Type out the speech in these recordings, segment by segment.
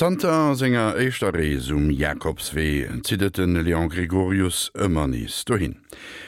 Zanter senger éischter Rees um Jakobswee zitt et de Léon Gregorius ëmmer nees dohin.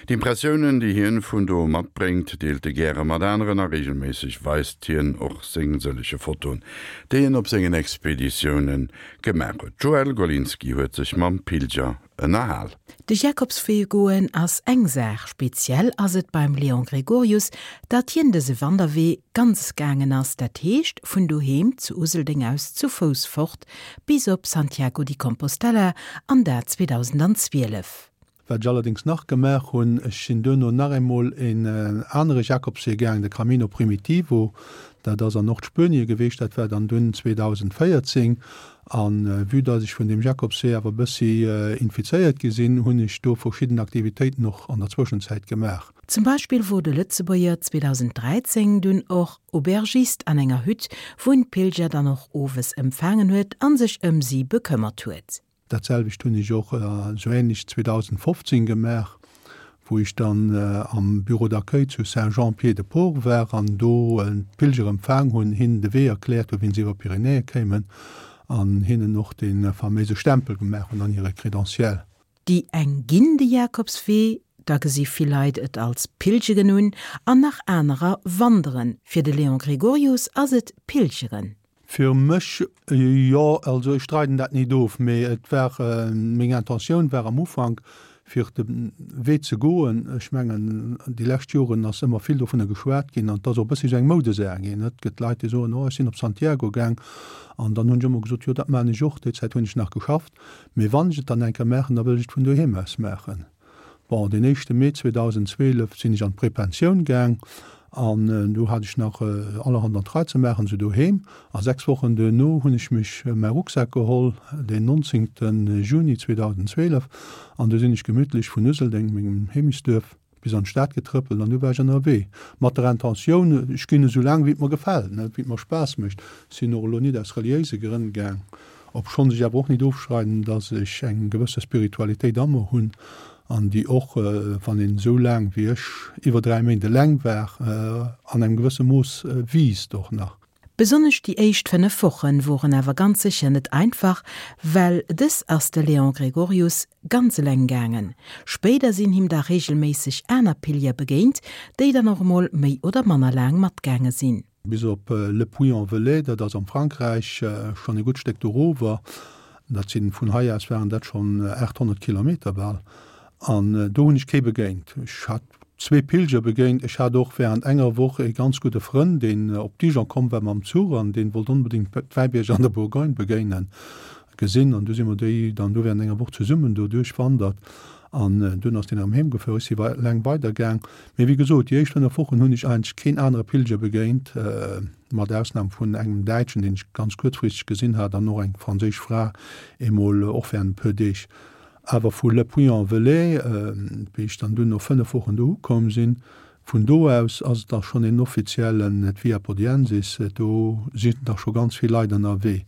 D'Impressiounen, déi hien vun do matbréngt, deelt e gäre mat aneren a reegelméisseg weist hien och seng sëllege Fotoen, déi en op sengen Expeditioune gemaach huet. D'Joëlle Golinski huet sech mam Pilger ënnerhal. De Jakobswee goen ass eng Saach, speziell ass et beim Léon Gregorius, datt hien dëse Wanderwee ganz gaangen ass, dat heescht vun doheem zu Useldeng aus zu Fouss fort bis op Santiago di Compostela an dat 2012. Wat ech allerdéngs nach gemaach hunn, ech sinn duerno nach eemol een anere Jakobswee gaang, de Camino Primitivo, dat ass an Nordspuenie geweecht, dat war dann dunn 2014. A vue dass ech vun deem Jakobswee awer e bëssi infizéiert gi sinn, hunn ech do verschidden Aktivitéiten och an der Zwëschenzäit gemaach. Zum Beispill wor de Lëtzebuerger 2013 dunn och Aubergist an enger Hütt, wou en d'Pilger dann och owes empfaangen huet an sech ëm si bekëmmert huet. Dat selwecht hunn ech och esou ähnlech 2015 gemaach, wou ech dann am Bureau d'accueil zu Saint-Jean-Pied-de-Port war an do d'Pilger empfaang hunn, hinnen de Wee erkläert hunn, wéi se iwwer d'Pyrenäe kéimen an hinnen och dee faméise Stempel gemaach hunn an hire Crédentiel. Déi eng ginn de Jakobswee, da gesi vill Leit et als Pilgeren un an nach anerer wanderen. Fir de Léon Gregorius ass et Pilgeren. Fir mech, jo, also ech streiden dat nit of, mee et war, meng Intentioun war am Ufank, fir de Wee ze goen. Ech mengen, déi lescht Joren ass ëmmer vill dovunner geschwat ginn an et ass och e bëssi esou eng Moudesaach ginn. Et gëtt Leit, déi soen, oh ech sinn op Santiago gaang an dann hunn ech ëmmer gesot, jo dat maachen ech och, déi Zäit hunn ech nach geschafft, mee wann ech et dann eng Kéier maachen, da wëll ech et vun doheem aus maachen. Bon, deen éischte Mee 2012 sinn ech an d'Prepensioun gaang an do hat ech nach allerhand an d'Rei ze maachen, sou doheem. A 6 Wochen duerno hunn ech mech mäi Rucksak geholl, deen 19. Juni 2012, an du sinn ech gemütlech vun Useldeng, mengem Heemechtsduerf, bis an d'Stad getrëppelt an du war ech ënnerwee. Mat der Intentioun, ech ginn esou laang wéi et mer gefält, wéi et mer Spaass mécht. Sinn och elo nit aus reliéise Grënn gaang. Obschonns ech awer och nit ofschreiden, dass ech eng gewësse Spiritualitéit a mer hunn an déi och, wann een esou laang wéi ech, iwwer 3 Méint eleng war, an engem gewësse Mooss wiisst och nach. Besonnesch déi éischt 5 Wochen woren awer ganz sécher net einfach, well dës ass de Léon Gregorius ganz eleng gaangen. Spéider sinn him da reegelméisseg aner Pilger begéint, déi dann och emol méi oder manner laang matgaange sinn. Bis op Le Puy-en-Velay, dat ass am Frankräich, schonn e gutt Stéck dorower. Dat sinn, vun hei aus waren dat schonn 800 Kilometer bal. An do hunn ech kee begéint. Ech hat zwee Pilger begéint. Ech hat och während enger Woch ee ganz gudde Frënn, deen op Dijon komm war mam Zuch an dee wollt onbedéngt d'Wäibierger an der Bourgogne begéinen. Gesinn an du si mer déi dann do während enger Woch zesummen do duerchwandert an dunn ass deen erëm heem gefuer. Ech si wei eleng weider gaang. Mee wéi gesot, déi éischt 5 Wochen hunn ech eigentlech keen anere Pilger begéint, mat Ausnam vun engem Däitschen, deen ech ganz kuerzfristeg gesinn hat an och eng franséisch Fra eemol, och während e puer Deeg. Awer vu Le Puy-en-Velay, wéi ech dann dunn no 5 Wochen do ukomm sinn, vun do aus ass et da schonn een offiziellen d'Via Podiensis, do sinn da scho ganz vill Leit ënnerwee.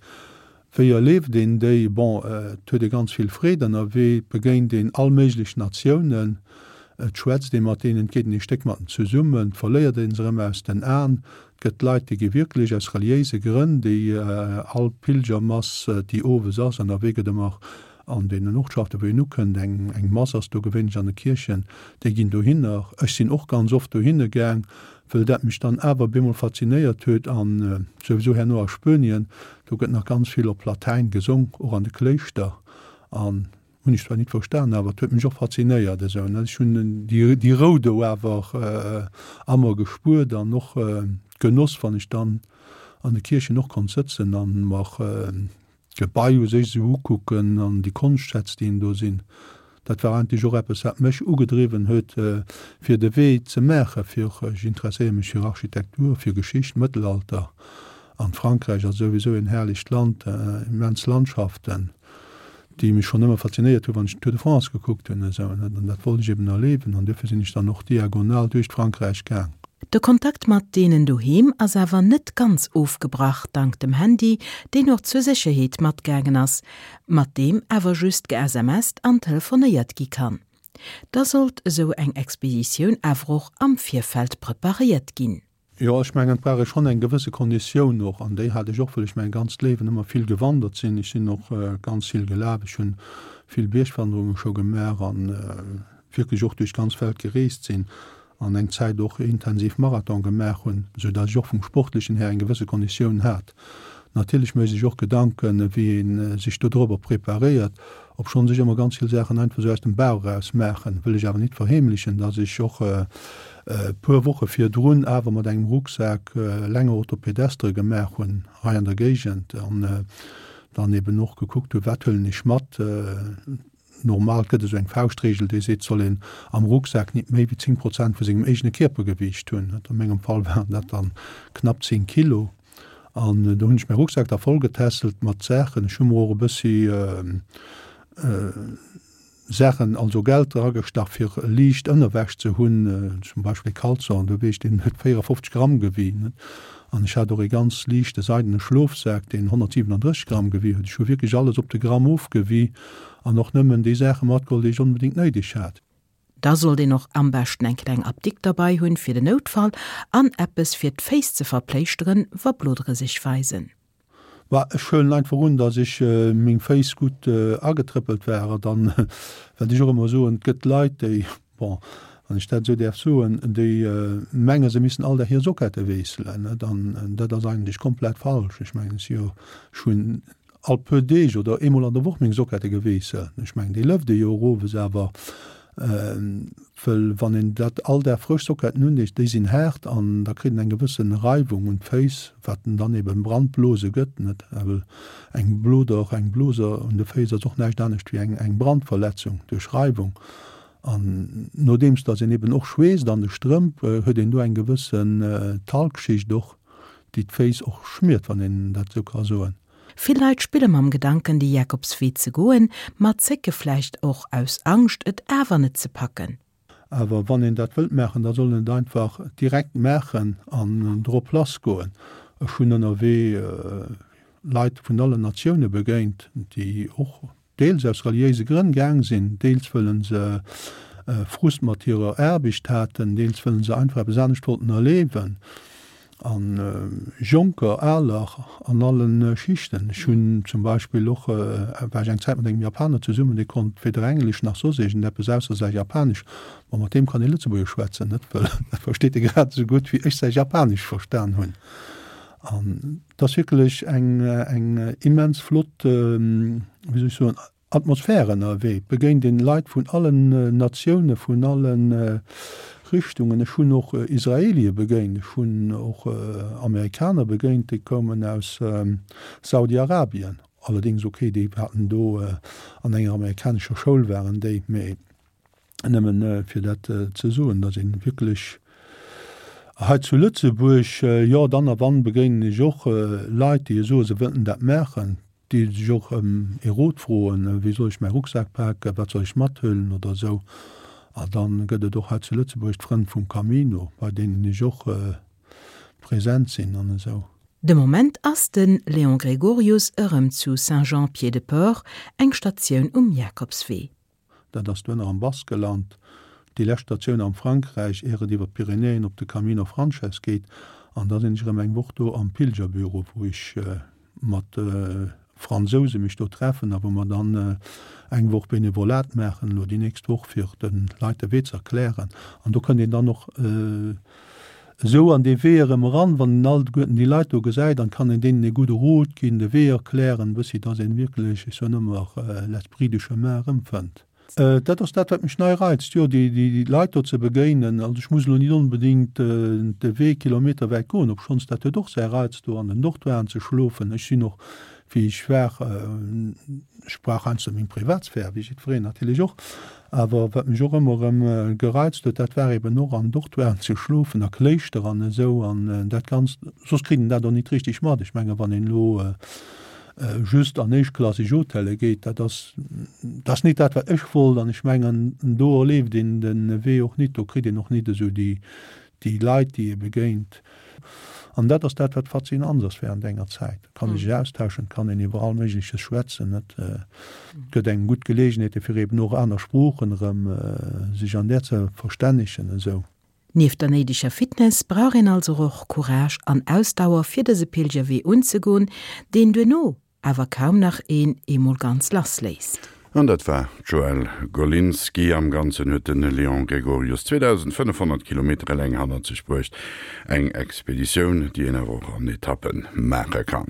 Wéi erleeft een déi? Bon, et huet ee ganz vill Freed ënnerwee, et begéint een all méiglech Natiounen, et schwätzt ee mat deenen, et geet een ee Stéck mat en zesummen, et verléiert ee se erëm aus den Aen. Et gëtt Leit, déi gi wierklech aus reliéise Grënn, déi all Pilgermass, déi owes ass, ënnerwee gëtt ëmmer an deenen Ortschaften, wou een ukënnt, eng eng Mass ass do gewéinlech an de Kierchen, déi ginn dohinner. Ech sinn och ganz oft dohinne gaang, wëll dat mech dann awer bemol faszinéiert huet an souwisou herno a Spuenien, do gëtt nach ganz vill op Latäin gesong, och an de Kléischter an hunn ech zwar nit verstan, awer et huet mech och faszinéiert esou, ne. Ech hunn déi déi Rou do awer a mer gespuert an och Genoss, wann ech dann an de Kierchen och konnt sëtzen an mer d'Gebai u sech esou ukucken an déi Konschtschätz, déi do sinn, dat war eigentlech och eppes, wat mech ugedriwwen huet, fir de Wee ze maachen, fir, ech interesséiere mech fir Architektur, fir Geschicht, Mëttelalter, an Frankräich ass souwisou en herrlecht Land, immens Landschaften, déi mech schonn ëmmer faszinéiert hunn, wann ech den Tour de France gekuckt hunn esou, an dat wollt ech eben erliewen an duerfir sinn ech dann och diagonal duerch d'Frankräich gaang. De Kontakt mat deenen doheem ass awer net ganz ofgebrach, dank dem Handy, deen och zur Sécherheet matgaangen ass, mat deem awer just ge-SMSt an telefonéiert gi kann. Da sollt esou eng Expeditioun awer och am Virfeld preparéiert ginn. Jo, ech mengen, et brauch ee schonn eng gewësse Konditioun och, an déi hat ech och, wëll ech mäi ganzt Léiwen ëmmer vill gewandert sinn. Ech sinn och ganz vill gelaf, ech hunn vill Biergwanderunge scho gemaach an wierklech och duerch d'ganz Welt gereest sinn an eng Zäit och intensiv Marathon gemaach hunn, sou datt ech och vum Sportlechen här eng gewësse Konditioun hat. Natierlech mécht ee sech och Gedanken, wéi ee sech dodrobber preparéiert, obschonns ech ëmmer ganz vill Saachen einfach sou aus dem Bauch eraus maachen, wëll ech awer nit verheemlechen, datt ech och e puer Woche virdrun awer mat engem Rucksak länger Autopedestre gemaach hunn hei an der Géigend an dann eben och gekuckt hunn, wat huelen ech mat. Normal gëtt esou eng Fauschtregel, déi seet, soll een am Rucksak nit méi wéi 10 Prozent vu sengem eegene Kierpergewiicht hunn. A mengem Fall waren dat dann knapp 10 Kilo. An do hunn ech mäi Rucksak da vollgetässelt mat Saachen. Ech hu mer och e bëssi Saachen, also Geld dragestach, fir liicht Ënnerwäsch ze hunn, zum Beispill e Caleçon, do weess ech, deen huet 54 Gramm gewien. An ech hat och ee ganz liichte seidene Schlofsak, deen 137 Gramm gewie huet. Ech hu wierklech alles op de Gramm ofgewie an och nëmmen déi Saache matgeholl, déi ech onbedéngt néideg hat. Da sollt een och am beschten eng kleng Apdikt derbei hunn fir den Noutfall an eppes fir d'Féiss ze verpléischteren, wa Blodere sech weisen. Bah, ech huelen einfach un, dass ech meng Féiss gutt agetrëppelt war. Dann, wat ech och ëmmer soen, et gëtt Leit, déi, bon, wann ech dat esou däerf soen, déi menge se missten all Dag hir Sockette wiesselen, net? An dat ass eigentlech komplett falsch. Ech mengen, ech si jo, ech hunn all puer Deeg oder eemol an der Woch meng Sockette gewiesselt. Ech mengen, déi lëft ee jo och owes, awer wëll wann een dat all Dag frësch Socketten undeet, déi sinn haart an da kritt een eng gewësse Reiwung un d'Féiss, wat en dann eben Brandblose gëtt, net? Well eng Bloder, eng Blose un de Féiss ass och näischt anescht wéi eng eng Brandverletzung duerch Reiwung. An nodeems datt een eben och schweesst an de Strëmp, huet een do eng gewëssen Talgschicht och, déi d'Féiss och schmiert, wann een dat esou ka soen. Vill Leit spille mam Gedanken de Jakobswee ze goen, ma zécke vläicht och aus Angscht et awer net ze packen. Awer wann een dat wëllt maachen, da soll een et einfach direkt maachen an drop lass goen. Ech hunn ënnerwee Leit vun allen Natioune begéint, déi och deels aus reliéise Grënn gaang sinn, deels wëllen se Frust mat hirer Aarbecht haten, deels wëllen se einfach eppes anescht wollten erleewen. A Jonker, Aler, an alle Schichten. Ech hunn zum Beispill och, war ech eng Zäit mat engem Japaner zesummen, dee konnt weder Englesch nach soss iergendeppes ausser säi Japanesch. Ma mat deem kann ee Lëtzebuergesch schwätzen, net? Wëll dat versteet e grad esou gutt, wéi ech säi Japanesch verstan hunn. An et ass wierklech eng, eng immens flott, wéi soll ech soen, Atmosphär ënnerwee. Et begéint een Leit vun allen Natioune, vun alle Richtungen. Ech hunn och Israelie begéint, ech hunn och Amerikaner begéint, déi koumen aus Saudi-Arabien. Allerdéngs, okay, déi haten do an enger amerikanescher Schoul waren déi, mee Nëmmen fir dat ze soen, datt ee wierklech hei zu Lëtzebuerg, jo, dann a wann begéinen ech och Leit, déi soen, se wëllten dat maachen, déi sech och ëm ee Rot froen, wéi soll ech mäi Rucksak paken, wat soll ech mathuelen oder esou. A dann gëtt et och hei zu Lëtzebuerg d'Frënn vum Camino, bei deenen ech och present sinn an esou. De Moment ass de Léon Gregorius erëm zu Saint-Jean-Pied-de-Port, eng Statioun um Jakobswee. Dat ass duerno am Baskeland, déi lescht Statioun am Frankräich, ier et iwwer d'Pyrenäen op de Camino Frances geet. An da sinn ech erëm eng Woch do am Pilgerbüro, wou ech mat Fransouse mech do treffen a wou mer dann eng Woch Benevolat maachen, elo déi nächst Woch, fir de Leit de Wee ze erklären. An do kënnt een dann och esou an dee Wee erëm eran, wann een alleguerten déi Leit do gesäit, an kann een deenen ee gudde Rot ginn, de Wee erklären, e bëssi, dass een wierklech, ech soen ëmmer, l'esprit du chemin erëmfënnt. Dat ass dat, wat mech nei reizt, jo, déi Leit do ze begéinen. Also ech muss elo nit onbedéngt de Wee kilometerwäit goen, obschonns dat huet och säi Reiz, do an den Dortoiren ze schlofen. Ech sinn och, wéi ech war, ech brauch heiansdo meng Privatsphär, wéi jiddwereen natierlech och, Awer wat mech och ëmmer erëm gereizt huet, dat war eben och an Dortoiren ze schlofen, a Kléischter an esou an dat Ganzt. Soss kritt een dat och nit richteg mat. Ech menge wann een elo just an éischtklasseg Hotelle geet, dat ass, dat ass nit dat wat ech wollt. An ech mengen do erleeft een de Wee och nit, do kritt een och nit esou déi, déi Leit, déi ee begéint. An dat ass dat, wat faszinant ass während enger Zäit. Et kann ee sech austauschen, et kann een iwwer all Méigleches schwätzen. Et gëtt engem gutt Geleegenheete fir eben och aner Sproochen erëm sech an där ze verstännegen esou. Nieft der néideger Fitness brauch een also och Courage an Ausdauer fir dëse Pilgerwee unzegoen, deen duerno awer kaum nach een eemol ganz lass léisst. An dat war d'Joëlle Golinski. Am Ganzen huet de Léon Gregorius 2.500 Kilometer eleng hannert sech bruecht. Eng Expeditioun, déi een awer och an Etappe maache kann.